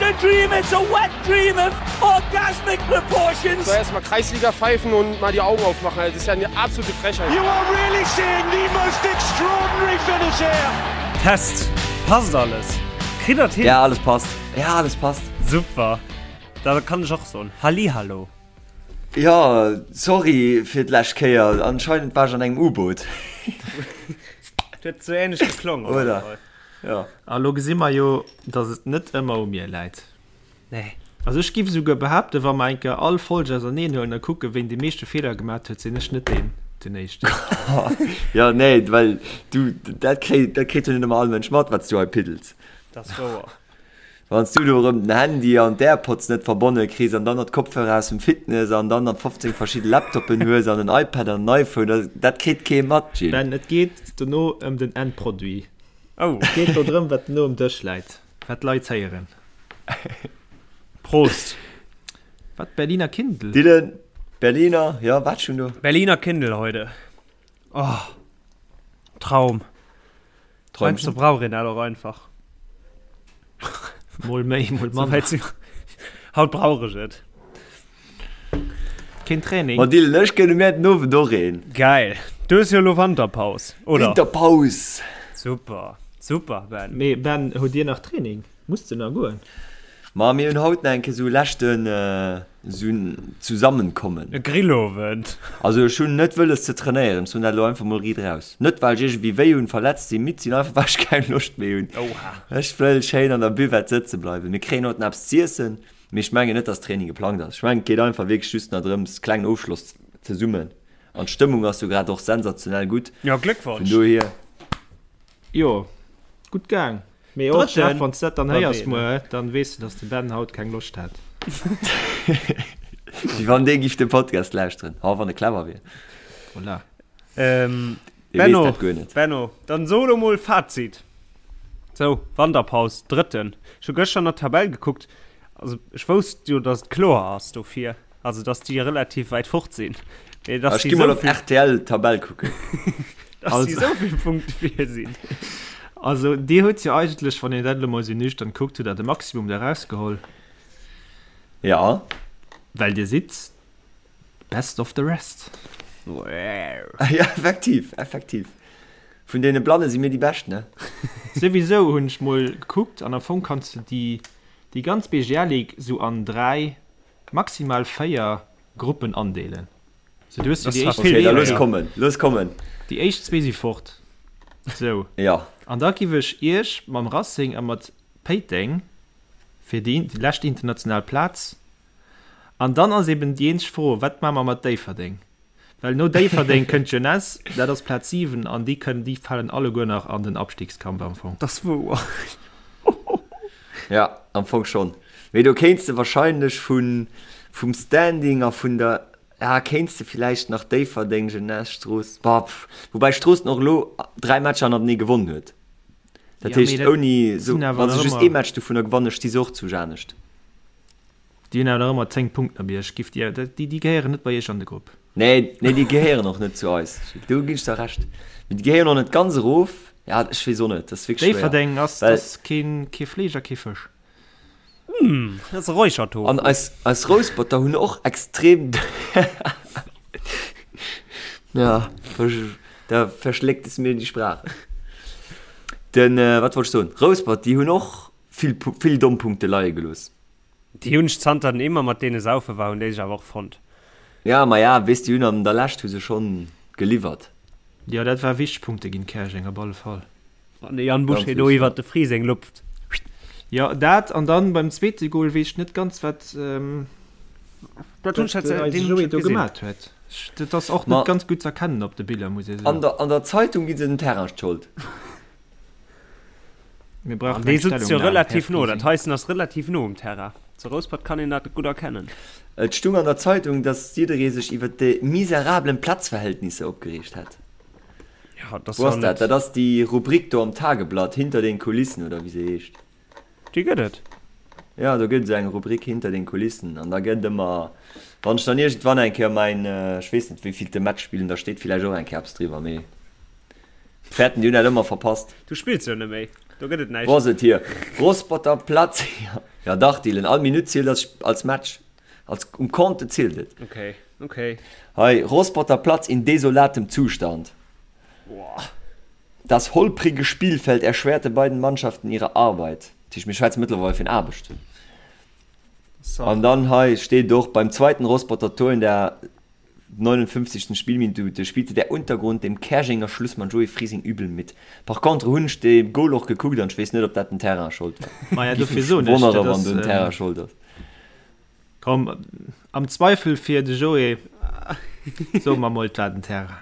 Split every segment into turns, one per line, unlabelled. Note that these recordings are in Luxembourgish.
a dream, it's a wet dream of orgasmic proportions.
So erstmal Kreisliga pfeifen und mal die Augen aufmachen. Das ist ja eine absolute Frechheit.
You are really seeing the most extraordinary finish here.
Test. Passt alles? Kritt der et hin?
Ja, alles passt. Ja, alles passt.
Super. Da kann ech och soen Hallihallo.
Jo, sorry fir d'lescht Kéier. Anscheinend war ech an engem U-Boot.
Huet sou ähnlech geklongen, op alle Fall.
Ja.
A lo gesi mer jo, dass et net ëmmer u mir läit.
Nee.
Also ech giff esouguer behaapten, wa mer eng Kéier all Folg auserneen huelen a kucken, ween déi meeschte Feeler gemat huet, sinn ech net deen den éischten.
Jo, nee, well du, dat kréit, dat kritt jo net ëmmer all Mënsch mat, wat s du hei piddels.
Dat ass wouer.
Wann s du do erëm den Handy an d'Airpods net verbonne kriss an dann nach d'Kopfhörer aus dem Fitness an dann nach 15 verschidde Laptoppen hues an en iPad an en iPhone, dat, dat kritt kee mat, Gilles.
Ben, et geet dono ëm den Endproduit.
Oh.
Et geet do drëm, wat dono um Dësch läit, wat d'Leit héieren.
Prost.
Wat, Berliner Kindl?
Dylan, Berliner, ja, wat schon do?
Berliner Kindl heute. Oh, Traum.
Träumchen.
Heiansdo brauch een dat och einfach.
Mol méi, mol manner.
Haut brauch ech et.
Keen Training.
Ma Dylan, ech gënne mir den Owend och een.
Geil. Du hues jo elo Wanterpaus, oder?
Winterpaus!
Super, super, Ben.
Mee Ben, hutt Dir nach Training? Muss de nach goen?
Ma mir hunn haut nach eng Kéier sou e leschten sou en Zusammenkommen.
E Grillowend.
Also ech hunn net wëlles ze trainéieren, ech soen dat elo einfach mol riit raus. Net well ech iergendwéi wéi hunn, verletzt sinn, midd sinn, einfach well ech keng Loscht méi hunn.
Oha.
Ech wëll schéin an der Buvette sëtze bleiwen. Mir kréien haut nach eppes z'iessen, mee ech mengen net dass Training geplangt ass. Ech mengen et geet einfach wierklech just nach drëms klengen Ofschloss zesummen an d'Stëmmung ass jo grad och sensationell gutt.
Jo,
Vun
Gléckwonsch.
dohier.
Jo, gutt gaang. Mee och, Jeff, wann s de dat dann héiers
Drëtten
muer, dann weess de, dass de Ben haut keng Loscht hat.
Wéi wann dee giff de Podcast lauschteren. Ha, wann e clever wier.
Voilà.
Ähm,
Dee weess
Benno,
dat guer net.
Benno, dann so elo mol Fazit. Sou, Wanterpaus, Drëtten. Ech hu gëschter an der Tabell gekuckt. Also, ech wousst jo, dass et kloer ass dofir. Also, dass déi relativ wäit fort sinn. Mee dass
Ech
déi
gi mol
sou
op
vill,
rtl d'Tabell kucken.
dass déi
Also,
sou vill Punkte vir sinn.
also Dir hutt jo eigentlech, wann een dat elo mol sou nüchtern kuckt, hutt Der de Maximum da rausgeholl.
Ja.
Well Dir sidd best of the rest.
Ja, effektiv, effektiv. Vun deene Blanne si mir déi Bescht, ne?
Souwisou hunn ech mol gekuckt an am Fong kanns de déi, déi ganz BGL-Ligue sou an 3, maximal 4 Gruppen andeelen. Sou du hues jo déi éischt
Okay, da
zwee,
looss kommen, looss kommen.
déi éischt zwee si fort. Sou.
Ja.
An da giff ech iech mam Racing a mat Péiteng fir déi lescht international Plaz. An dann ass eben déi eenzeg Fro, wat maache mer mat Déifferdeng? Well no Déifferdeng kënnt d'Jeunesse, dat ass Plaz 7, an déi kënnen, déi falen alleguer nach an den Abstiegskampf am Fong.
Dat ass wouer.
Ja, am Fong schonn. Mee do kéints de wahrscheinlech vun, vum Standing a vun der, ja, kéints de villäicht nach Déifferdeng, Jeunesse, Strooss, bah, pff, woubäi Stroossen och elo 3 Matcher hannertenee gewonnen huet. Dat
Ja, mee
heescht,
dat
ouni esou,
sinn awer
wa se
nach
just
ëmmer.
ee Match dovunner gewannen, sti se och zu Janescht.
Déi hunn awer nach ëmmer 10 Punkten op iech. Giff dir, déi, déi gehéieren net bei iech an de Grupp.
Nee, nee, déi gehéieren och net zu eis. Do ginn ech der Recht. Mee déi gehéieren och net ganz erof. Ja, ech weess och net, dat ass wierklech schwéier.
Déifferdeng ass,
Well.
ass keen, kee Fleesch a kee Fësch.
Dat ass Räuchertofu.
An eis, eis Rousperter hunn och extrem. Ja, da verschléckt es mir die Sprache. Den, wat wollt ech soen? Rouspert, déi hunn och vill, vill domm Punkte leie gelooss.
Déi hunn ech zanter den immer mat deene saufe war, hunn déi sech awer och fonnt.
Ja, ma ja, weess déi hunn an der Lescht hu se schonn geliwwert.
Jo, dat war wichteg Punkte ginn Käerjeng op alle Fall.
Wann de Yann
Ganz
Boucher do
wichteg, ja.
iwwert de Friseng lupft.
Jo, dat an dann beim zweete Goal weess ech net ganz wat
Dat hunn ech
wat
dat
eise
deen hunn ech
Joé
net
do
gesinn.
gemat huet. Ech, dat ass och
Ma
net ganz gutt z'erkennen op de Biller, muss ee
an
soen.
der an der Zeitung gi se dem Terrain d'Schold.
Mir
An
brauchen
dee
eng
sutzt jo
Stellungnam, Här
relativ no, dat
Frising.
heissen ass relativ no um Terrain. Zu Rouspert kann een dat gutt erkennen.
Et stung an der Zeitung, dass jidderee sech iwwer déi miserablen Platzverhältnisse opgereegt hätt.
Ja, dat ass
Wou
jo
ass dat?
net.
Dat ass déi Rubrik do am Tageblatt, Hinter den Kulissen oder wéi se heescht.
Déi gëtt et.
Jo, do gëtt esou eng Rubrik Hinter den Kulissen an da gëtt ëmmer, wann ech dann iergendwann eng Kéier mäin, ech weess net wéivillte Match spillen, da steet villäicht och eng Kéier eppes driwwer, mee fäerten, déi hunn dat ëmmer verpasst.
Du spills jo net méi. Do gëtt et näischt.
Wou ass et hier? Rosspotter Platz. Ja dach Dylan, all Minutt zielt als, als Match. Als, um Compte zielt et.
Okay, okay.
Hei, Rosspotter Platz in desolatem Zustand.
Boah.
Das holprige Spielfeld erschwerte beiden Mannschaften ihre Arbeit. Dat heescht, mir schwätze mëttlerweil vun Aarbecht.
So.
An dann hei steet och, beim zweiten Rosspotter Tor in der 59. Spielminute spielte der Untergrund dem Käerjenger Schlussmann Joé Frising übel mit. Par contre hunn ech de Goal och gekuckt an ech weess net ob dat den Terrain Schold war.
Maja
Giff
dofir
mech
soen ech,
wonnere
dat
wann
ass
do den Terrain Schold ass.
Komm, am Zweifel fir de Joé soe mer mol et war den Terrain.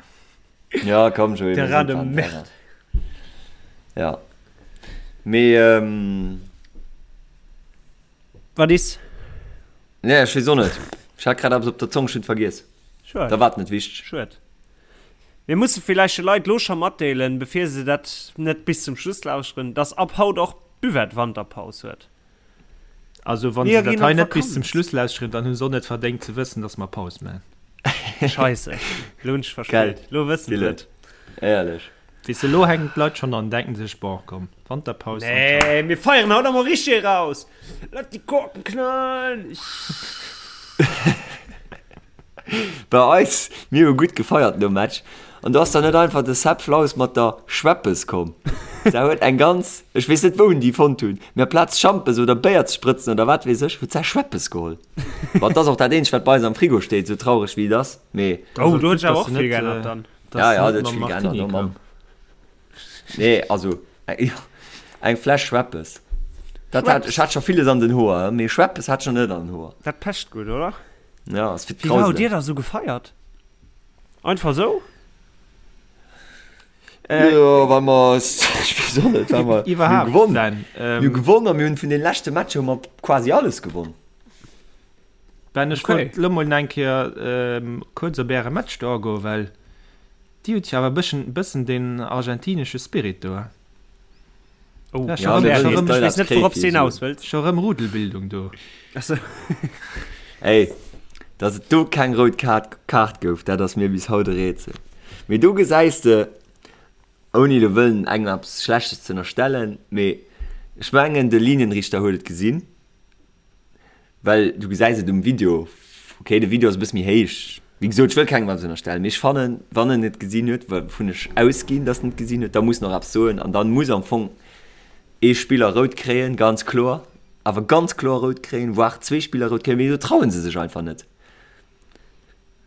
Ja komm Joé, mir
Terrain
soen
de
et war den
merde.
Terrain. Ja mee ähm.
Wat is?
Nee, ech weess och net. Ech hat grad eppes op der Zong, ech hunn et vergiess.
Schued.
Da war et net wichteg.
Schued. Mir musse villäicht de Leit lo scho matdeelen, bevir se dat net bis zum Schluss lauschteren, dass ab haut och d'Buvette Wanterpaus huet.
Also wann
Mir
se dat
ginn
hei
an
net bis zum
d'Vakanz.
Schluss lauschteren, dann hu se och net verdéngt ze wëssen, dass mer Paus maachen.
Scheisse, lo hunn ech
Gell,
verspillt. Lo wëssen se
Dylan.
et.
Éierlech.
Weess de, lo hänken d'Leit schonn an denken sech, bon komm, Wanterpaus an ciao.
Nee, mir feieren haut emol richteg eraus. Lass die Korken knallen.
Bei eis, mir hu gutt gefeiert nom Match an do ass dann net einfach de Sepp Flaus mat der Schweppes komm. Se huet eng ganz, ech weess net wou en déi fonnt hunn, mee aplaz Schampes oder Béier ze sprëtzen oder wat weess ech, huet se Schweppes geholl. Bon, et ass och dat eenzegt wat bei eis am Frigo steet, sou traureg wéi et ass, mee.
Oh, do huet sech awer och vill geännert dann.
Ja, ja, dat huet vill geännert, oh Mamm. Nee, also eng Fläsch Schweppes. Dat hat, ech hat scho villes an den Hoer, mee Schweppes hat ech nach net an den Hoer.
Dat pecht gutt, oder?
Ja, ass fir
Wéi war
d'Krauselen.
hutt Dir da sou gefeiert? Einfach sou?
Jo, well mer, ech weess och net, well mer, mir hu
Iwwerhaapt,
gewonn.
Ben,
Mir hu gewonn a mir hunn vun den leschte Matcher hu mer quasi alles gewonn.
Ben, ech
Okay.
wollt lo mol eng Kéier kuerz op äre Match do agoen, well Dir hutt jo awer e bëssen, bëssen deen argentinesche Spirit do, he?
Oh,
Ja,
Ja,
scho
mir
rëm,
wëllen
scho
dass
rëm,
d'Leit
ech weess
eppes
net,
kréie
wourop
fir
s de
hir
hinaus
Suen.
wëlls.
scho rëm Rudelbildung do.
Achso.
Ey, dass et do keng rout Kaart, Kaart gouf, dat ass mir bis haut e Rätsel. Mee do gesäis de, ouni elo wëllen engem eppes Schlechtes ze ënnerstellen, mee ech mengen de Linienrichter huet et gesinn. Well du gesäis et um Video, ok de Video ass e bësse méi héich, wéi gesot ech wëll kengem eppes ënnerstellen, mee ech fannen wann en et gesinn huet, wouvun ech ausginn dass en et gesinn huet, da muss en och eppes soen an dann muss am Fong ee Spiller rout kréien, ganz kloer, awer ganz kloer rout kréien, voire zwee Spiller rout kréien, mee do trauen se sech einfach net.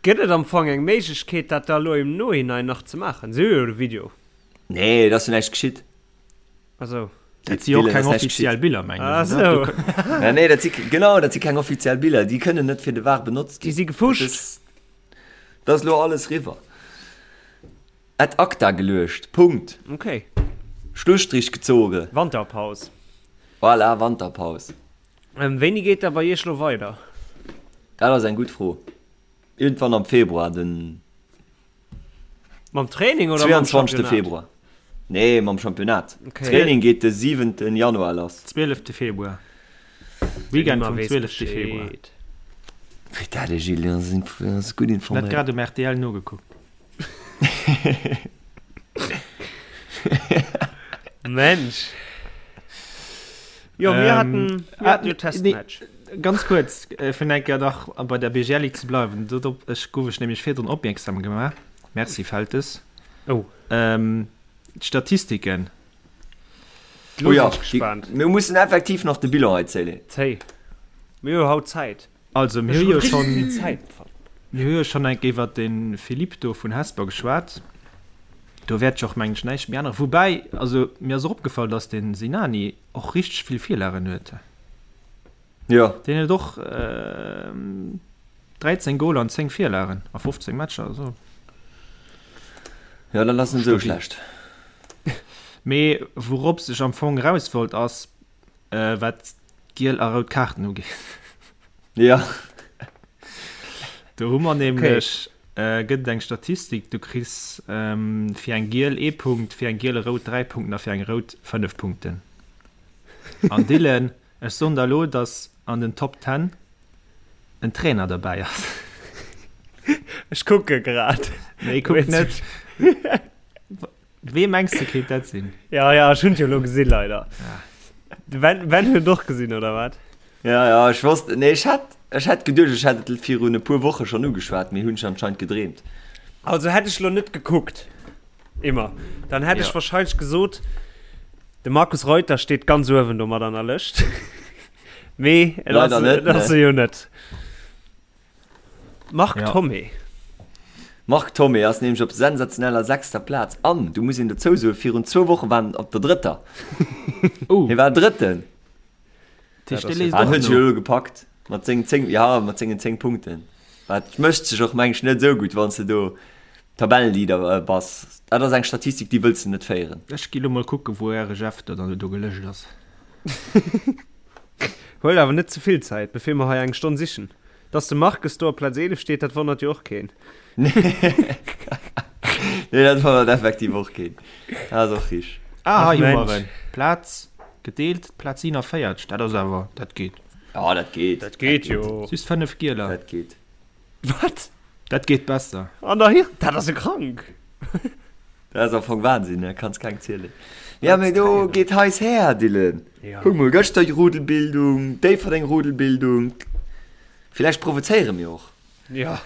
Gëtt et am Fong eng Méiglechkeet dat da elo im Nohinein nach ze maachen? Se hu jo de Video.
Nee, et ass jo näischt geschitt.
Also.
Dat si och keng offiziell Biller, mengen ech.
Ah, sou.
Ja, nee, dat si, genau, dat si keng offiziell Biller. Déi kënnen net fir de VAR benotzt
Déi
ginn.
si gefuscht.
Dat ass, dat ass elo alles riwwer. Ad acta geluecht. Punkt.
Okay.
Schlusstrich gezogen.
Wanterpaus.
Voilà, Wanterpaus.
Ähm, wéini geet da bei Iech lo weider?
Dat ass eng gutt Fro. Iergendwann am Februar, den.
Mam Training oder mam
22.
Championnat?
Februar. Nee, mam Championnat.
Okay.
Training geet de 7. Januar lass.
12. Februar. Weekend
Immer
vum
weess
12. Februar.
Bescheed.
Wéi dat, de Gilles, ass ass gutt
Net
informéiert.
grad um RTL nogekuckt.
Mensch. Jo, mir
Ähm,
hatten, mir
ah,
hatten jo
nee,
Testmatch.
Ganz kuerz, fir eng Kéier nach bei der BGL Ligue ze bleiwen, dorop ech gouf ech nämlech virdrun opmierksam gemaach, Merci Feltes.
Oh.
D'Statistiken.
Lo
Oh ja,
sinn ech gespaant.
Mir mussen effektiv nach de Bilan hei zéien.
Zéi. Mir hu haut Zäit.
Also mir
Ech
hu
hu
jo
richtig
schonn,
vill Zäit.
mir hu jo schonn eng Kéier iwwert de Philippe do vun Hesper geschwat. Do wäert ech och mengen ech näischt méi änneren. Woubäi, also mir ass och opgefall, datt de Sinani och richteg vill Virlagen huet.
Jo.
Deen huet och 13 Goler an 10 Virlagen a 15 Matcher, also.
Jo, dat ass net esou schlecht.
Mee wourops ech am Fong eraus wollt ass, wat d'giel a rout Kaarten ugeet.
Jo.
Do hu mer nämlech, gëtt et eng Statistik, du kriss fir eng giel ee Punkt, fir eng giel e rout 3 Punkten a fir eng rout 5 Punkten. An Dylan, Ech soen der elo, dass an den Top Ten en Trainer derbäi ass.
Ech kucke grad.
Nee, kuck net. Wee mengs de kéint dat sinn?
Ja, ja, ech hunn et jo elo gesinn, leider. De Ben, Ben huet et och gesinn, oder wat?
Ja, ja, ech wosst, nee, ech hat, ech hat geduecht, ech hätt et virun e puer Woche schonn ugeschwat, mee hunn ech anscheinend gedreemt.
Also hätt ech lo net gekuckt, immer, dann hätt ech
Ja.
wahrscheinlech gesot, de Markus Reuter steet ganz uewen do mat an der Lëscht. Mee et ass,
Leider net,
et ass
ne.
e jo net. Marc
Ja.
Thomé.
Marc Thomé ass nämlech op sensationeller sechster Plaz an, du muss een dozou soen, virun zwou Woche war en op der drëtter.
Oh.
Hie war Drëtten.
Dat heescht, dee léisst
Ah,
och
huet sech
no.
elo gepackt mat sengen 10, ja, mat sengen 10 Punkten. Dat mécht sech och meng ech net esou gutt, wann s de do Tabellenleader äh, bass. Dat ass eng Statistik, déi wëlls de net féieren.
Ech gi lo mol kucken, wou äre Jeff do dann do gelëscht ass.
Huel awer net ze vill Zäit, bevir mer hei eng Stonn sichen. Dass de Marques do op Plaz 11 steet, dat wonnert jo och keen.
Nee, dat wonnert effektiv och keen. Dat ass och richteg.
Ah,
Ach,
hei hu mer
Mensch.
en. Plaz gedeelt, Plaz 47. Dat ass awer, dat geet.
Ja, dat geet.
Dat geet jo.
Just 5 Gieler.
Dat geet.
Wat?
Dat geet besser.
An der Hir, dat ass e krank.
Dat ass am Fong Wahnsinn, ne? Kanns keng zielen. Ja, mee do geet heiss her, Dylan.
Ja.
Kuck mol, gëschter Rudelbildung, Déifferdeng Rudelbildung. Villäicht provozéiere mir och.
Ja.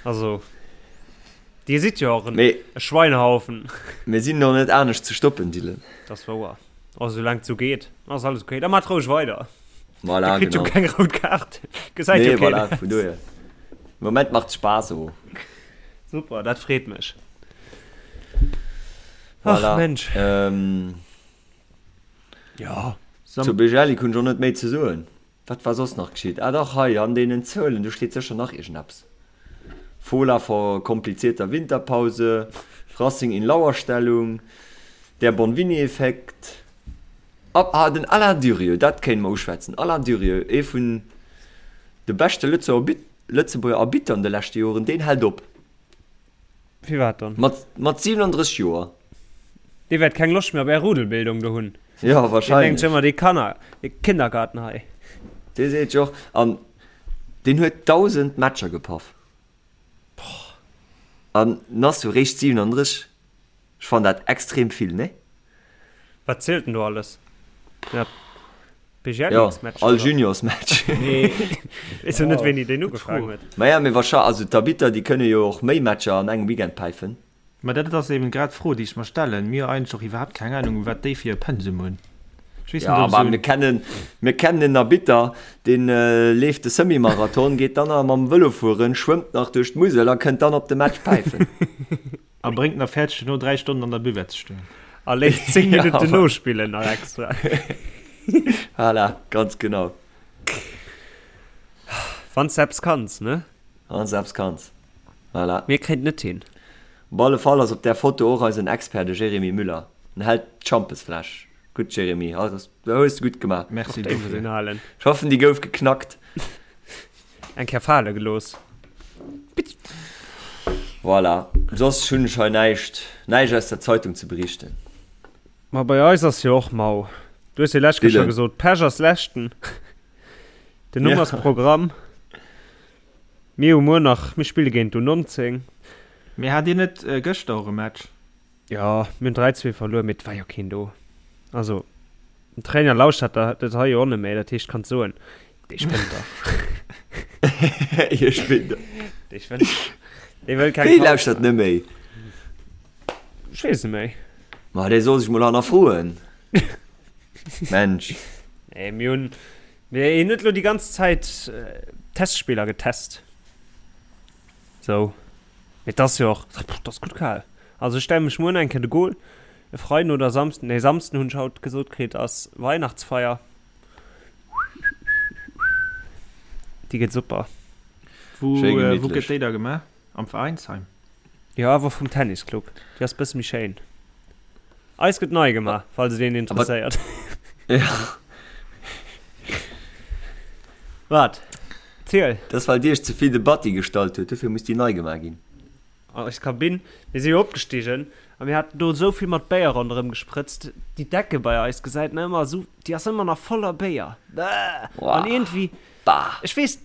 Also, Dir sidd jo och en
Mee
e Schweinehaufen.
mir sinn och net anescht ze stoppen, Dylan.
Dat ass wouer. Oh, soulaang et sou geet, ass alles okay. Da maacht roueg weider.
Voilà,
Dir kritt jo
genau.
keng rout Kaart. Gesäit
Nee,
jo keen.
voilà, vun dohier. Moment macht Spaass, oh.
Super, dat freet mech.
Voilà.
Ach Mensch.
Ähm,
Ja.
Zu Bejellik hunn ech och net méi ze soen. Wat war soss nach geschitt? Ah dach, hei an deenen Zuelen, do steet sécher nach iergendeppes. Fola vor komplizierter Winterpause, Racing in Lauerstellung, der Bonvini-Effekt. Ah, den Alain Durieux, dat kéinte mer uschwätzen. Alain Durieux, ee vun de beschte Lëtzebuerger Arbitter an de leschte Joren, deen hält op.
Firwat dann?
Mat, mat 37 Joer.
Dee wäert keng Loscht méi op är Rudelbildung do hunn.
Ja,
Deen denkt
wahrscheinlech.
sech ëmmer, dee Kanner, dee Kindergarten hei.
Dee seet jo och, an deen huet 1.000 Matcher gepaff. An en ass jo réischt 37. Ech fannen dat extrem vill, nee?
Wat zielt denn do alles? Ja,
Ja, all Juniorsmatch.
Nee, weess jo net wéini deen ugefaangen huet.
Maja, mee wahrscheinlech, also d'Arbitter déi kënne jo och méi Matcher an engem Weekend päifen.
Ma dat ass eben grad d'Fro déi ech mer stellen. Mir hu eigentlech och iwwerhaapt keng Ahnung wat déi fir e Pensum hunn. Ech weess
Ja,
net ob
ma
esou
mir kennen, mir kennen en Arbitter, deen leeft de Semi-Marathon, geet dann nach mam Vëlo fueren, schwëmmt nach duerch d'Musel a kënnt dann op de Match päifen.
A bréngt nach fäerdeg duerno 3 Stonnen an der Buvette ze stoen.
A léisst 10
Ja,
Minutten
voilà.
nospillen nach extra.
Voilà, ganz genau.
Wann s de eppes kanns, ne?
Wann s de eppes kanns. Voilà.
Mir kréint net hin.
Op alle Fall ass op där Foto och eisen Expert, de Jérémy Müller. En hält d'Schampesfläsch. Gutt, Jérémy, also, dat hues de gutt gemaach.
Merci
Och déi muss
dofir.
een halen.
Ech hoffen, déi gouf geknackt.
Eng Kéier fale gelooss.
Voilà, soss hunn ech hei näischt, näischt aus der Zeitung ze berichten.
Ma bei eis ass jo och mau. Du hues jo lescht Kéier scho
Dylan.
gesot, Pech ass leschten. Den Numm
Ja.
ass Programm. Mir hu muer nach, mir spille géint d'U19.
Mee hat dir net gëschter och e Match?
Jo, mir hunn 3, 2 verluer, mee et war jo keen do. Also, den Trainer lauschtert dat hei jo och net méi, dat heescht, kanns soen, dee spënnt dach.
Hie spinnt dach.
Dee spënnt dach. Dee wëll keng
Wéi
Paus
lauschtert net méi?
Ech weess net méi.
Ma dee soll sech mol hannerfroen. Mensch.
Nee, mir hunn, mir hunn net elo déi ganz Zäit Testspiller getest. Sou. Mee 't ass jo och, 't ass gutt kal. Also ech stelle mech muer nach eng Kéier de Goal. E Freiden oder Samsden, nee Samsden hunn ech haut gesot kritt ass Weihnachtsfeier. Déi gëtt super.
Wou
Schéi
wou
gemittlech.
gëtt déi da gemaach? Am Veräinsheim?
Jo, awer vum Tennisclub. Déi ass bësse méi schéin. Eis gëtt nei gemaach, falls et een interesséiert.
Ja.
Wat? Ziel.
Dat ass well Dir iech ze vill de Batti gestallt huet, dofir muss déi nei gemaach ginn.
Eis Kabinn, mir si jo opgestigen a mir haten do esou vill mat Béier ronderëm gesprëtzt, déi Decke bei eis gesäit nach ëmmer esou, déi ass ëmmer nach voller Béier. Bäh! An iergendwéi,
Bah!
ech weess,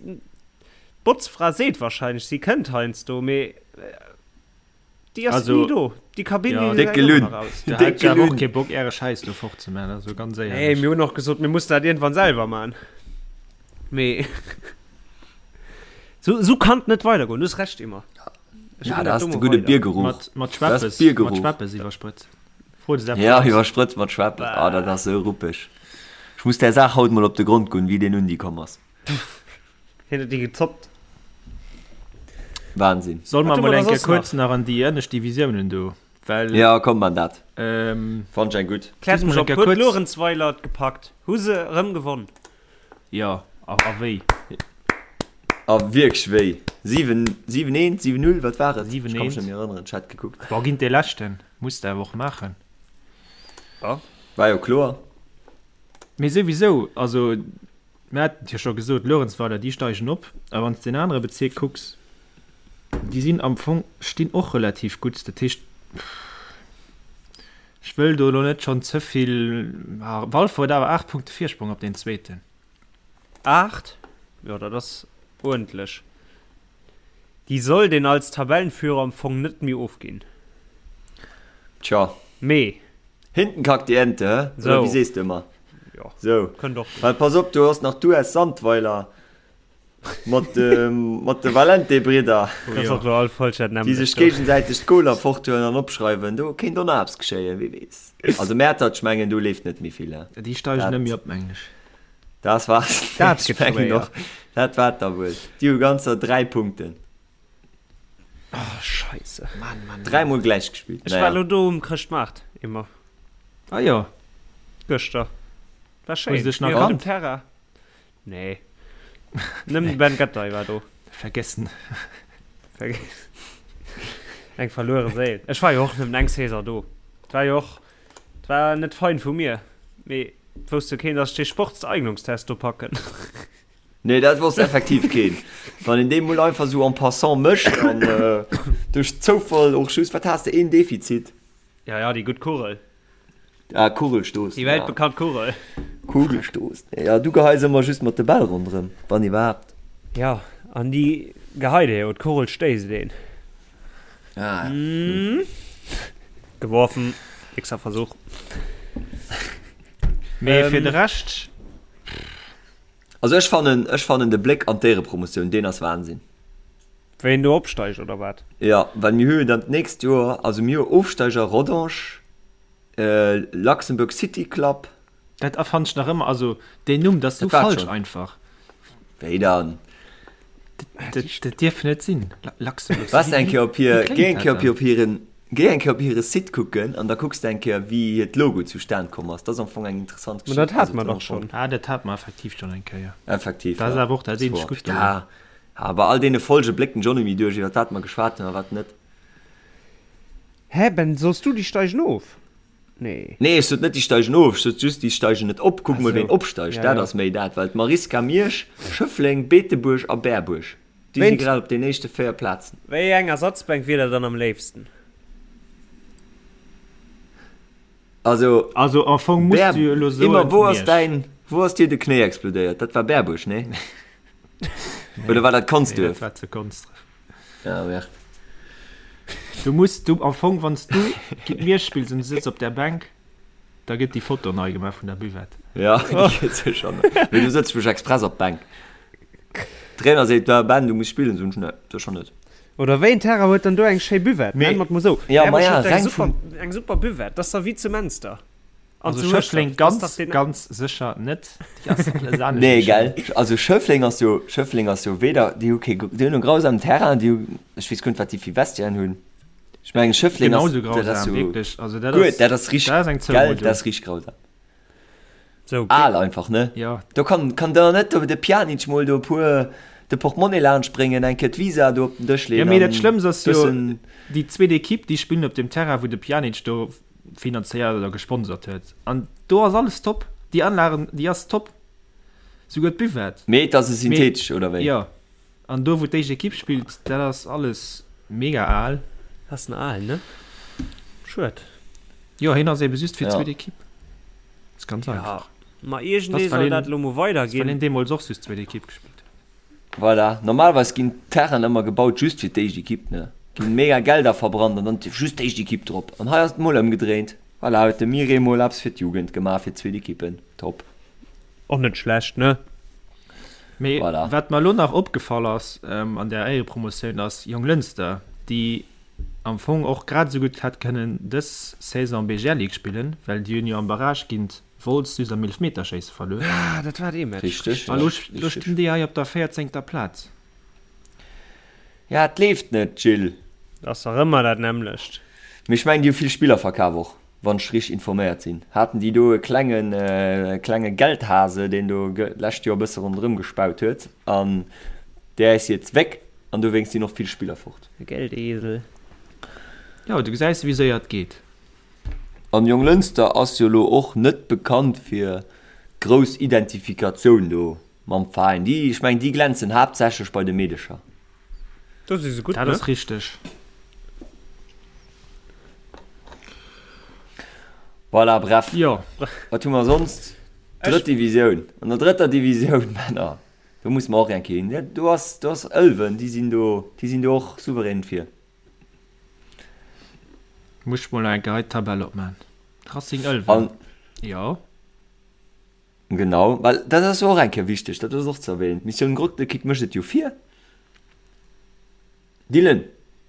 d'Botzfra seet wahrscheinlech, si kënnt heiansdo, mee. Déi ass
Also,
ni do. Déi Kabinn,
ja.
déi
Déck
gesäit ëmmer
gelunn.
nach aus.
Da
Déck
hätt ech awer och
gelunn.
kee Bock äre Schäiss do fort ze man, also ganz
Nee,
éierlech.
mir hunn och gesot, mir mussen dat iergendwann selwer man. Mee sou, sou kann et net weidergoen. Du hues Recht, Emma. Ech
Ja,
ginn
dat
dat
ass
do
de
mol
gudde
weider.
Biergeruch.
Mat, mat
Dat ass
Schweppes, mat
Biergeruch.
Schweppes iwwersprëtzt. Fro des eppes
Ja,
aus.
iwwersprëtzt mat Schweppes. Ah, dat ass sou ruppeg. Ech muss där Saach haut mol op de Grond goen, wéi deen Undi komm ass.
Hien huet déi gezoppt.
Wahnsinn.
Soll mer
Wat hu
mol
mer da
eng Kéier
soss
kuerz
nach?
nach an déi ënnescht Divisiounen do, well.
Ja, komm man dat.
Ähm.
Fand ech eng gutt.
Kläert
Just
mech
mol eng
op,
Kéier
huet
kuerz.
Luerenzweiler et gepackt? Hu se erëm gewonn?
Jo, a, a wéi?
A wierklech wéi? 7, 7 1, 7 0, wat war et?
7
Ech ka mech
1.
net méi erënneren, ech hat gekuckt.
Boah, géint dee leschten. Muss de awer och maachen.
Ja.
War jo kloer.
Mee souwisou, also Mir haten et jo scho gesot, Luerenzweiler, déi steigen op. A wann s de den anere Bezierk kucks, déi sinn am Fong, stinn och relativ gutt. Dat heescht, ech wëll do elo net schonn ze vill, Walfer huet awer 8 Punkte Virsprong op deen Zweeten.
8? Jo, dat ass uerdentlech. Déi sollt een als Tabellenführer am Fong net méi ofginn.
Tja.
Mee.
Hinten kackt die Ente, hä? Oder
Sou.
wéi sees de ëmmer?
Jo.
Sou.
Kënnt och gutt.
Well pass op, du hues nach d'US Sandweiler mat de, mat de Valente-Bridder,
Oh
Dat ass
jo.
och elo all falsch, dat
déi
nämmlecht
sech
do.
géigesäiteg d'Goler forthuelen an opschreiwen. Do kéint och nach eppes geschéien, wie weess. Also Mäertert, ech mengen, do leeft net méi vill, hä?
Déi steigen
Dat.
net méi op, mengen ech.
Dat war
Dat gëtt schwéier.
Dat war da wuel. Déi hu ganzer 3 Punkten.
Oh, Scheisse.
Mann, Mann, Mann.
Dräimol gläich gespillt.
Ech war elo do um Chrëschtmaart, Emma.
Ah jo.
Gëschter. War schéin.
Hues de dech nach
Mir op dem
kannt?
Terrain. Nee. Nëmmen de Ben Gattei war do.
Vergessen.
Eng verluere Séil. Ech war jo och nëmmen eng Saison do. Et war jo och, et war net fein vu mir. Mee Et wousst jo keen, dass ech dee Sportseignungstest do packen.
Nee, dat wosst effektiv keen. Wann een dee mol einfach sou en passant mécht an duerch Zoufall och just, wat has de, een Defizit?
Ja, ja, déi gutt Kugel.
Ah, Kugelstoßen,
Déi
ja.
weltbekannt Kugel.
Kugelstoßen, ja, du geheis ëmmer just mat de Bäll ronderëm, wann iwwerhaapt.
Ja, an déi geheit ee jo, d'Kugel stéisst een.
Ah, ja.
Geworfen, nächster Versuch.
Mee fir de Rescht.
Also ech fannen, ech fannen de Bléck an d'Éierepromotioun, deen ass Wahnsinn.
Wéi do opsteigt oder wat?
Jo, well mir hu jo dann d'nächst Joer, also mir hu Ofsteiger Rodange, Luxembourg City Club.
Dat fannen ech nach ëmmer, also deen Numm, dat ass sou falsch einfach.
Wéi dann?
Dat dierf net sinn, Luxembourg City.
Waars eng Kéier op hir, géi eng Kéier op hiren, géi eng Kéier op hire Site kucken an da kucks de eng Kéier wéi hiert Logo zustan komm ass. Dat ass am Fong eng interessant
Geschicht. Ma dat hate mer dach schonn.
Ah, dat hate mer effektiv schonn eng Kéier.
Effektiv,
Dat ass awer och dat eenzegt Gutt dorun.
Ja, bei all deene Folge bléckt den John méi duerch iwwer wat mer geschwat hunn a wat net.
Hä Ben, soss du déi steigen of? Nee.
Nee, ech sot net déi steigen of, ech sot just déi steigen net op. Kuck mol ween opsteigt,
Ja,
dat
ja.
ass méi dat, well d'Mariska Miersch, Schëffleng, Beetebuerg a Berbuerg, déi si
Wéint.
grad op den éischte 4 Plazen.
Wéi eng Ersatzbänk wier der dann am léifsten?
Also,
Also am Fong muss
Bär,
du jo elo soen,
Immer, wou ass
Miersch.
däin, wou ass dir de Knéi explodéiert? Dat war Berbuerg, nee? Oder war dat
Nee, dat
Consdurf?
war zu Konsdref.
Ja, merde.
Du muss du am Fong wann du géint Miersch spills an du sëtz op der Bänk, da gëtt déi Foto nei gemaach vun der Buvette.
Ja, déi gëtt sécher nei. Mee du sëtz mech express op d'Bänk. Trainer seet, da Ben, du muss spillen, soen ech, nee, sécher net.
Oder wéi en Terrain huet dann do eng schéi Buvette?
Mee,
Nenn mer et mol sou.
ja, ma
Berbuerg
ja,
huet eng
reng
super,
vum.
eng super Buvette. Dat ass da wéi zu Menster. An
Also
zu
Schëffleng
Hueschtert. Dat ass
ganz,
dach deen.
ganz sécher net. Déi ass alles anescht
Nee,
wéi
gell?
schéin.
Also Schëffleng ass jo, Schëffleng ass jo weder, déi hu kee, déi hunn e grausamen Terrain, déi hu, ech weess guer net, wat déi fir Vestiairen hunn. Ech mengen Schëffleng ass,
Genauso
dat ass
grausam,
jo
wierklech. Also dat
guer,
ass,
dat ass richteg,
dat ass eng
gell,
Zoumuddung.
dat ass richteg grausam.
Sou,
Al einfach, ne?
Jo.
Do kann, kann der net do de Pjanic mol do e puer, de Portemonnaie laanscht bréngen, eng Kéier d'Visa do op den Dësch
Jo,
leeën
mee dat
an
Schlëmmst ass jo,
bëssen.
déi zweet Ekipp, déi spillen op dem Terrain, wou de Pjanic do finanzéiert oder gesponsert huet. An do ass alles top. Déi Anlagen, déi ass top. Souguer d'Buvette.
Mee et ass e
Mee,
synthetesch, oder wéi?
jo. An do, wou d'éischt Ekipp spillt, dat ass alles mega al.
Ass en al, ne? Schued.
Jo, hien ass ebe just fir
Ja.
d'zweet Ekipp. Ass ganz
Ja,
einfach.
ma
Das
iergendee
well
soll
hien,
dat elo mol
das well
weiderginn.
hien deemools och just zweet Ekipp gespillt huet.
Voilà. Normalerweis ginn d'Terrainen ëmmer gebaut just fir d'éischt Ekipp, ne? Ginn mega Gelder verbrannt an dann just d'éischt Equipe drop. An hei ass et mol ëmgedréint. Voilà, huet de Mire mol eppes fir d'Jugend gemaach, fir d'zweet Equipen. Top.
Och net schlecht, ne?
Mee voilà. Wat mer elo nach opgefall ass ähm, an der Éierepromotioun ass Jonglënster, déi am Fong och grad esou gutt hätt kënnen dës Saison BGL Ligue spillen, well déi hunn jo am Barrage géint Wolz just am Eelefmeterschéisse verluer.
Ah, dat war dee Match.
Richteg.
A lo, lo stinn déi hei op der 14. Plaz.
Ja, et leeft net, Gilles.
Ass dach ëmmer dat nämmlecht.
Mee ech mengen, déi hu vill Spiller verkaf och, wann ech richteg informéiert sinn. Haten déi do e klengen, e klenge Geldhase, deen do d'lescht Joer e bësse ronderëm gespaut huet an der ist jetzt weg an dowéinst sinn och vill Spiller fort.
E Geldesel.
Jo, du gesäis wéi séier et geet.
An Jonglënster ass jo lo och net bekannt fir grouss Identifikatioun do Mam Veräin. Déi, ech mengen, déi glänzen haaptsächlech bei de Meedecher.
Do si se gutt,
Dat
ne?
ass richteg.
Voilà, bref.
Jo.
Wat hu mer sonst? Drëtt Divisioun. An der drëtter Divisioun, Männer, do musse mer och eng Kéier hin. Do ass, do ass Ëlwen, déi sinn do, déi sinn do och souverän vir.
Muss ech mol nach eng Kéier hei d'Tabell opman. Racing Ëlwen.
An.
Jo.
Genau, well dat ass jo och eng Kéier wichteg, dat ass och ze erwähnen, d'Missioun Grottekick mécht et jo vir. Dylan,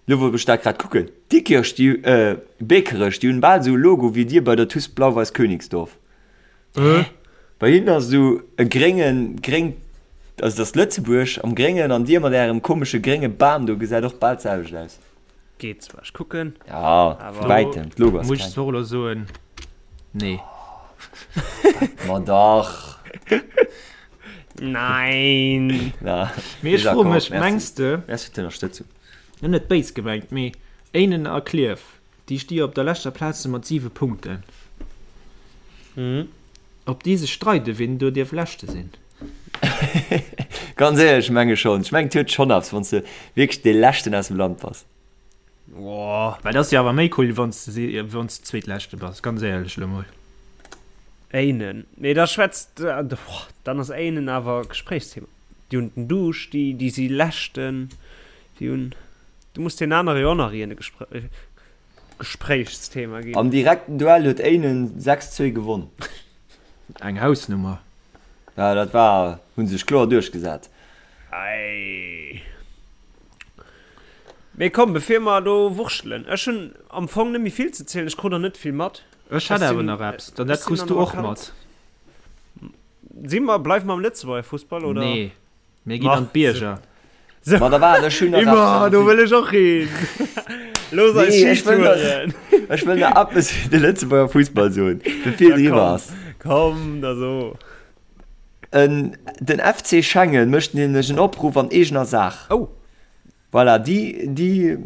lo wou ech dat grad kucken, Diekirch, déi, äh, Bekerech, déi hunn bal esou e Logo wéi dir bei der TuS Blau-Weiß Königsdorf.
Hä?
Bei hinnen ass esou e gréngen, gréng, also dat ass Lëtzebuerg am Gréngen an dir mat ärem komesche grénge Bam do gesäit och bal d'selwecht aus.
Geet zwar, ech kucken.
Ja, vu wäitem,
d'Logo ass kleng. Muss ech zwar och elo soen, nee.
Ma dach.
Nein.
Na,
Mee ech froe mech, mengs de.
Merci fir d'Ënnerstëtzung.
Net net béis gemengt, mee Éinen a Klierf, déi sti jo op der leschter Plaz mat 7 Punkten. Ob déi sech streiden, wien do dierf Leschte sinn?
Ganz éierlech, ech menge schonn. Ech mengen, et huet schonn eppes, wann s de wierklech dee Leschten aus dem Land bass.
Well et ass jo awer méi cool, wann s de wann s de Zweetleschte bass, ganz éierlech elo mol.
Éinen, mee da schwätzt, dann ass Éinen awer Gespréichsthema. Déi hunn den Duuscht, déi, déi si Leschten, déi hunn, du muss deenen anere jo och nach iergend e Gespréichsthema ginn.
Am direkten Duell huet Éinen 6, 2 gewonn.
Eng Hausnummer.
Ja, dat war, hu sech kloer duerchgesat.
Ei. Mee komm, bevir mer do wurschtelen, ech hunn am Fong net méi vill ze zielen, ech krut der net vill mat.
Ech hätt awer nach eppes, dann dat kriss du och mat.
Si mer, bleiwe mer am Lëtzebuerger Fussball, oder?
Nee. Mir ginn an d'Bierger.
So.
Ma da waart, ech hunn nach
Immer,
eppes.
do wëll ech och hin. Looss eis
Nee, ech wëll nach,
Skitouren.
ech wëll nach eppes fir de Lëtzebuerger Fussball soen, bevir
Ja,
et eriwwer
komm,
ass.
komm, da so.
En, den FC Schengen mécht nämlech en Opruff an eegener Saach.
Oh.
Voilà, déi, déi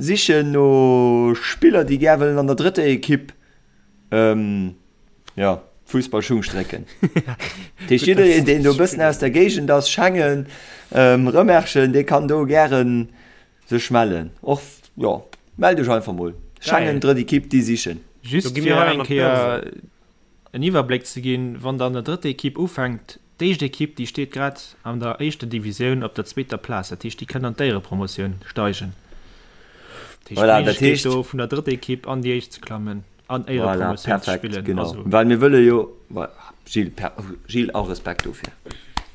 sichen no Spiller, déi gär wëllen an der drëtter Ekipp, ähm, jo, Fussballschung strécken. Dat heescht, jiddereen, deen do e bëssen aus der Géigend ass, Schengen, ähm, Rëmerschen, dee kann do gären sech mellen. Och, jo, mellt iech einfach mol. Schengen, drëtt Ekipp, déi sichen.
Just fir eng Kéier en Iwwerbléck ze ginn, Wann der an der drëtter Ekipp ufänkt, D'éischt Ekipp, déi steet grad an der éischter Divisioun op der zweeter Plaz, dat heescht, déi kënnt an d'Éierepromotioun steigen. Dat heescht,
Voilà, dat
d'Méiglechkeet
heescht.
do vun der drëtter Ekipp an déi éischt ze klammen an
Voilà,
Éierepromotioun ze
perfekt,
spillen.
genau.
Also.
Well mir wëlle jo, Gilles, per, Gilles, all Respekt dofir.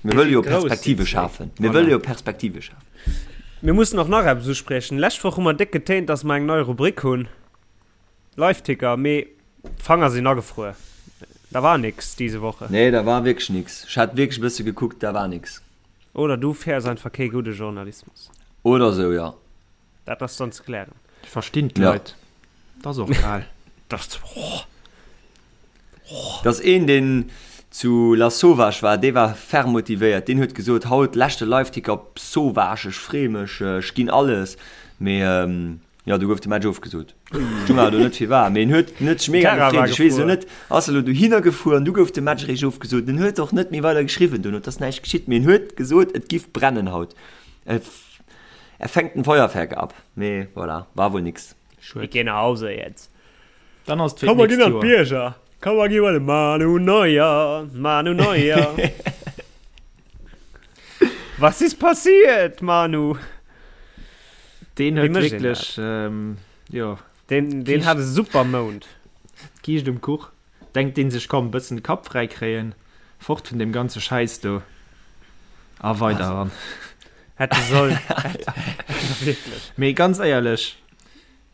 Mir
Mir
wëlle
si
jo
grouss, déi
Perspektive
zwéi.
schafen. Mir
Voilà.
wëlle jo Perspektive schafen.
Mir mussen och nach eppes uspriechen. Lescht Woch hu mer déck getéint, dass mer eng nei Rubrik hunn. Liveticker, mee d'Fanger sinn agefruer. Da war nix diese Woche.
Nee, da war wierklech nix. Ech hat wierklech e bësse gekuckt, da war nix.
Oder du fäers einfach kee gudde Journalismus.
Oder sou, jo.
Dat ass dann ze klären.
Ech verstinn
Ja.
d'Leit. 't ass och kal.
Dat, oh.
Et ass een, deen zu Lasauvage war, dee war ferm motivéiert. Deen huet gesot, Haut leschte Liveticker op Sauvage, ech free mech, ech ginn alles. Mee Jo, du gouf de Match ofgesot. Stung awer do net firwat, mee en huet, en huet sech mega
Terra war
gefreet. Ech weess elo
gefuer.
net, ass e lo dohinner gefuer an du gouf de Match eréischt ofgesot. En huet och net méi weider geschriwwen dono, et ass näischt geschitt, mee en huet gesot, et giff brennen haut. Er, er fängt ein Feuerwerk ab. Mee voilà, war wohl nix.
Ich
Schued.
geh nach Hause jetzt.
Dann ass et fir
Komm, mer
d'nächst
ginn an
Joer.
d'Bierger. Komm, mer gi bei de Manu Neuer. Manu Neuer. Was ist passiert, Manu?
Deen huet wierklech, ähm, jo.
Deen, deen hat e super Mount.
D'Kiischt um Kuch. Denkt deen sech, komm, bëssen de Kapp fräi kréien, fort vun deem ganze Schäiss do a weider eran.
Hätt e sollen.
Wierklech. Mee ganz éierlech,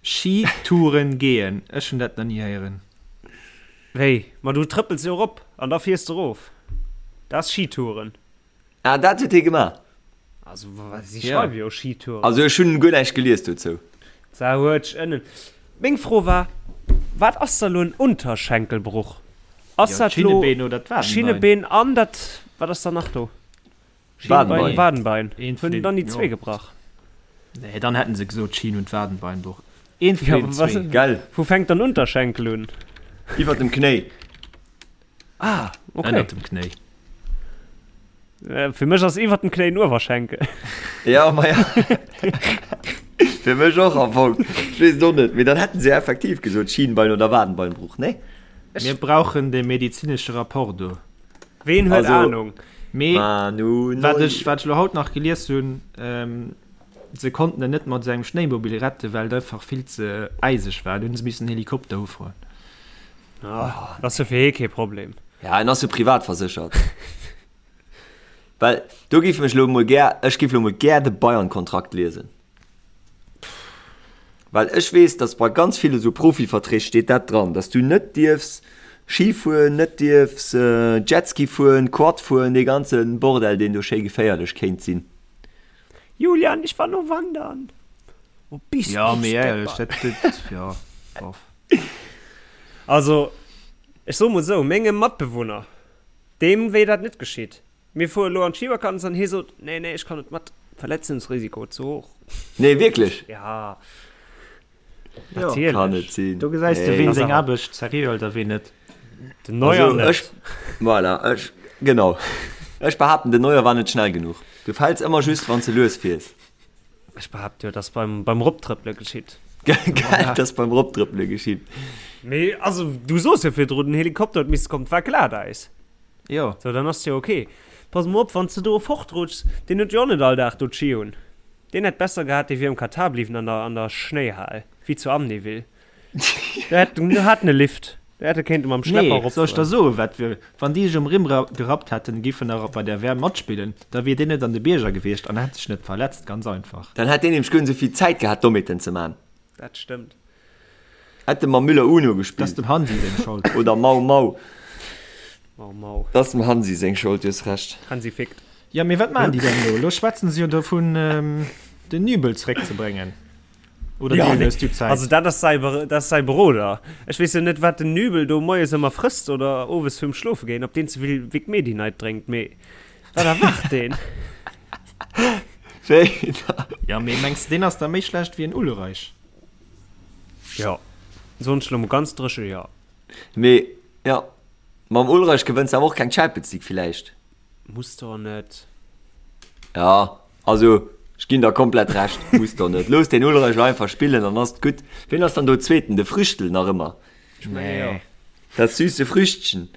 Skitouren gehen, ech hunn dat nach ni héieren.
Wéi? Ma du trëppels jo erop an da fiers de erof. Dat ass Skitouren.
Ah, dat huet hie gemaach?
Also, si schreiwe jo Skitouren.
Also ech hunn guer näischt gelies dozou.
Sa huet ënnen. Meng Fro war, wat ass da lo en Unterschenkelbruch? Ass dat lo Schinnebeen an dat, wat ass da nach do?
Schienbein,
Wadenbein. Hunn dann déi zwee gebrach?
Nee, dann hätten se gesot Schien und Wadenbeinbruch.
Eent vun den zwee. Gell? Wou fänkt dann Unterschenkel un?
Iwwer dem Knéi.
Ah, okay.
Ënnert dem Knéi.
Äh, fir mech ass iwwer dem Knéi en Uewerschenkel.
Ja, ma ja. Fir mech och am Fong. Ech weess et och net. Mee dann hätten se ja effektiv gesot Schienbein oder Wadenbeinbruch, nee?
Mir brauchen de medizinesche Rapport do.
Ween huet
Also,
Ahnung?
Mee
Manu
wat
Neuer.
ech, wat ech elo haut nach gelies hunn, ähm, se konnten en net mat esou engem Schnéimobil retten, well et einfach vill ze äiseg war. Du hunn se missen en Helikopter ufroen.
Ah, dat ass jo fir hee kee Problem.
Ja, en ass jo privat verséchert. Well do géif mech lo mol gär, ech géif lo mol gär de Bayern-Kontrakt liesen. Well ech weess, datt bei ganz ville sou Profiverträg steet dat dran, datt du net dierfs Ski fueren, net dierfs Jetski fueren, Quad fueren, dee ganze Bordell, deen do schéi geféierlech kéint sinn.
Julian, ich war nur wandern. Wo bist
Ja,
du,
mee éierlech,
Stepper?
dat, dat, ja, bof.
Also, ech soe mol esou, mengem Matbewunner, deem wéi dat net geschitt. Mir fuere lo an d'Schivakanz an hie sot, nee, nee, ech kann net mat, Verletzungsrisiko ze hoch.
Nee, wierklech?
Ja,
Jo,
natierlech.
Kann net sinn.
Do gesäis de,
Nee.
ween seng Aarbecht seriö hëlt a ween net.
Den Neuer
Also,
net.
ech, voilà, ech, genau. Ech behaapten, den Neuer war net schnell genuch. Du fäls ëmmer just, wann s de lues fiers.
Ech behaapte jo, dass beim, beim Roptrëppele geschitt.
Gell, dass beim Roptrëppele geschitt.
Mee, also, du soos jo virdrun, den Helikopter huet misse kommen, 't war Glatäis.
Jo.
So, dann ass jo ok. Pass mol op, wann s de do fortrutschs, deen huet jo och net all Dag do d'Ski un. Deen hätt besser gehat, dee wier am Katar bliwwen an der, an der Schnéihal, wéi zu Amnéville. Do hätt, do hat en e Lift, do hätt e kéinte mam Schlepper
Nee, soll ech der
eropfueren.
soen, wat wier, wann déi sech um Rimm gerappt hätten, giffen nach bei der WM matspillen, da wier deen net an de Bierger gewiescht an hätt sech net verletzt, ganz einfach.
Dann hätt deen nämlech guer net esou vill Zäit gehat, Dommheeten ze man.
Dat stëmmt.
Hätt e mam Müller Uno
Dat ass
gespillt.
dem Hansi seng Schold.
Oder Mau Mau.
Mau Mau.
Dat ass dem Hansi seng Schold, du hues Recht.
Hansi fickt.
Jo, mee wat maachen déi dann elo? Elo schwätzen se jo dovun, den Nübel zeréckzebréngen. Oder
Ja,
deenen
nee.
hues du Zäit?
Also dat ass säi, dat ass säi Beroder. Ech weess jo net, wat den Nübel do moies ëmmer frësst oder owes virum Schlofe goen, ob deen ze vill Vic Medi-Night drénkt, mee wat erwaart deen?
Wéi da?
Ja, mee mengs de, deen ass da méi schlecht wéi en Ulreich?
Jo, soen ech elo mol ganz dréche jo.
Mee jo, mam Ulreich gewënns de awer och keng Champions League villäicht.
Muss der net.
Ja, also ech ginn der komplett Recht, muss der net. Looss den Ulreich elo einfach spillen, dann ass et gutt. Wien ass dann do Zweeten? De Früchtl nach ëmmer?
Ech menge jo.
Dat süße Früchtchen.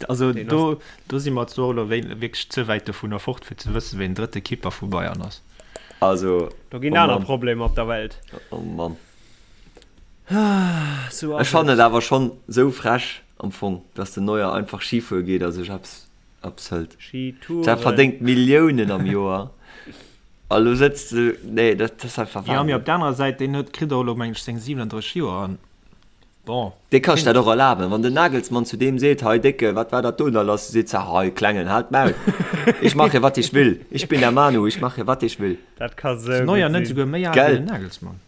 Also do, do si mer zwar elo wierklech ze wäit dovunner fort, fir ze wëssen, ween drëtte Keeper vu Bayern ass.
Also,
Do ginn
oh
aner
Mann.
Problemer op der Welt.
Oh Mann.
Sou ass
Ech fannen
et.
et awer schonn sou frech am Fong, dass den Neuer einfach Ski fuere geet a sech eppes eppes hëlt.
Skitouren.
Der verdéngt Milliounen am Joer a lo sëtzt de, nee, dat ass einfach
Jo, mee
Wahnsinn.
op der anerer Säit, deen huet, kritt och elo, meng ech, seng 37 Joer an bon.
Dee ka sech dat och erlaben. Wann den Nagelsmann zu deem seet, Hei Décke, wat war dat do da lass? Seet se, Hei Klengen, halt d'Maul, ich mache wat ich will, ich bin der Manu, ich mache wat ich will.
Dat ka
Ass
sou
Neuer
gutt
net
sinn.
esouguer méi al wéi
Gell?
den Nagelsmann?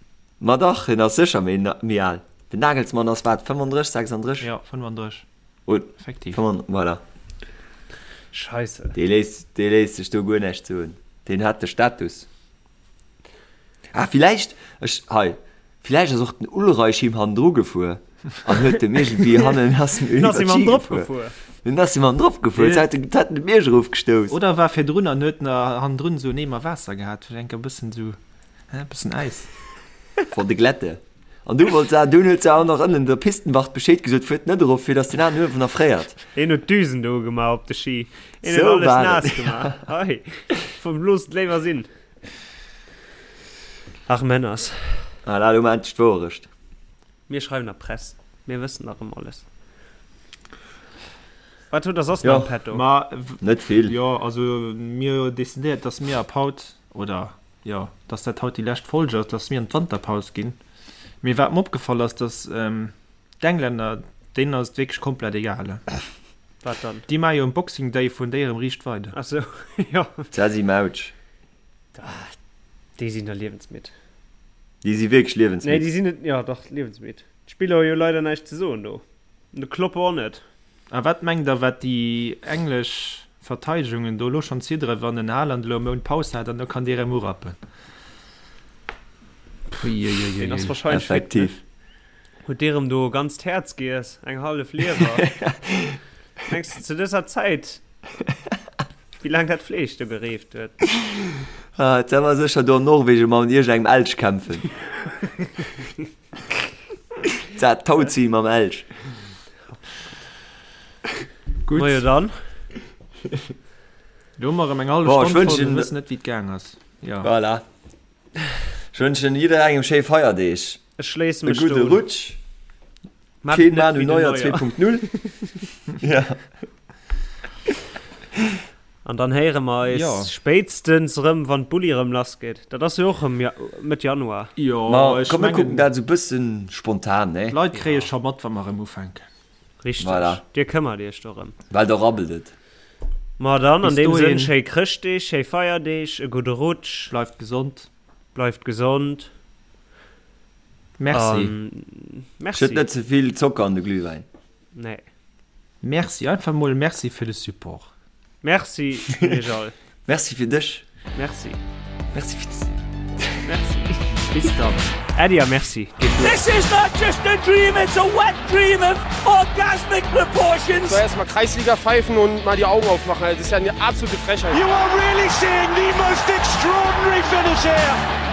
Ma dach, hien ass sécher méi, méi al. Den Nagelsmann ass wat, 35, 36?
Jo, 35.
Und,
Effektiv.
Voilà.
Scheisse.
Dee léisst, dee léisst sech do guer näischt soen. Deen hat de Status. Ah, villäicht, ech, hei, villäicht ass och den Ulreich him hannendru gefuer an huet dem iergendwéi hannen, ass him
Ass him
iwwer
hannendrop
d'Ski gefuer.
gefuer.
Den ass him hannendrop gefuer,
Dee-
hat en, hat en de Bierg erofgestouss.
Oder war virdrun an huet na hannendrun esou en Eemer Waasser gehat, fir enker e bëssen esou, hä, e bëssen Äis.
Vor de Glätte. An du wollt se, dunn huet se auch nach ënnen der Pistenwacht Bescheed gesot, fuert net erof, fir dass den aneren uewen erfréiert.
Een huet d'Düsen do ugemaach op de Ski. Een huet
Sou
alles
war
naass
et.
gemaach. Hei, loosst et léiwer sinn. Ach Männers.
Voilà, elo mar endlech d'Wouerecht.
Mir schreiwen der Press, mir wëssen dach ëm alles. Wat hutt der soss nach am Petto?
Ma
Net vill.
Jo, also mir hu jo decidéiert, dass mir ab haut, oder jo, dass dat haut déi lescht Folge ass, dass mir an d'Wanterpaus ginn. Mee wat mer opgefall ass, dass d'Englänner, deenen ass et wierklech komplett egal.
Wat dann?
Déi maache jo um Boxing Day vun déi erëm riicht weider.
Ach sou, jo.
D'Sessi Mautsch.
Déi sinn der liewensmidd.
Déi si wierklech liewensmidd.
Nee, déi sinn net, jo dach, liewensmidd. D'Spiller hu jo leider näischt ze soen do. An de Klopp och net.
A wat mengt der, wat déi englesch Verteidegungen do elo schonn zidderen, wann den Haaland elo e Mount Paus hat an da kann dee rëm urappen?
Puiuiuiui. Deen ass wahrscheinlech fit, ne?
Effektiv.
Huet dee rëm do e ganzt Häerz giess, eng hallef Liewer? Mengs de zu dëser Zäit, wéi laang dat Fleesch do gereeft huet?
Ah, et war sécher do an Norwegen mam iergend engem Elch kämpfen. Dat Tauzieh mam Elch.
Gutt.
Majo dann.
Do hu mer erëm eng hallef
Bon, ech
Stonn voll, mir
wënschen.
wëssen net wéi et gaang ass. Jo.
Voilà. Ech wënschen jidderengem schéi Feierdeeg.
Ech schléisse
E
mech do
gudde
un.
Rutsch.
Maat
Keen
net
Manu
wéi den
Neuer
Neuer.
2.0. Ja.
An dann héiere mer eis
Jo.
spéitstens erëm, wann d'Bulli erëm lass geet. Dat ass jo och erëm ja Mëtt Januar.
Jo,
Ma
ech
komm, mir kucken
mengen,
dat esou bëssen spontan, ne?
d'Leit kréie scho mat, wa mer erëm ufänken.
Richteg.
Voilà.
Dir këmmert iech dorëm.
Well da rabbelt et.
Ma dann, an
Bis
deem Sënn,
dohin.
schéi Chrëschtdeeg, schéi Feierdeeg, e gudde Rutsch.
Bleift gesond.
Bleift gesond.
Merci.
An merci.
Schëtt net ze vill Zocker an de Glühwäin.
Nee.
Merci, einfach mol Merci fir de Support.
Merci un iech all.
Merci fir dech.
Merci.
Merci fir
Merci.
Bis dann.
Äddi a Merci. Geet duer.
This is not just a dream, it's a wet dream of orgasmic proportions.
So, erstmal Kreisliga pfeifen und mal die Augen aufmachen. Das ist ja eine absolute Frechheit.
You are really seeing the most extraordinary finish here.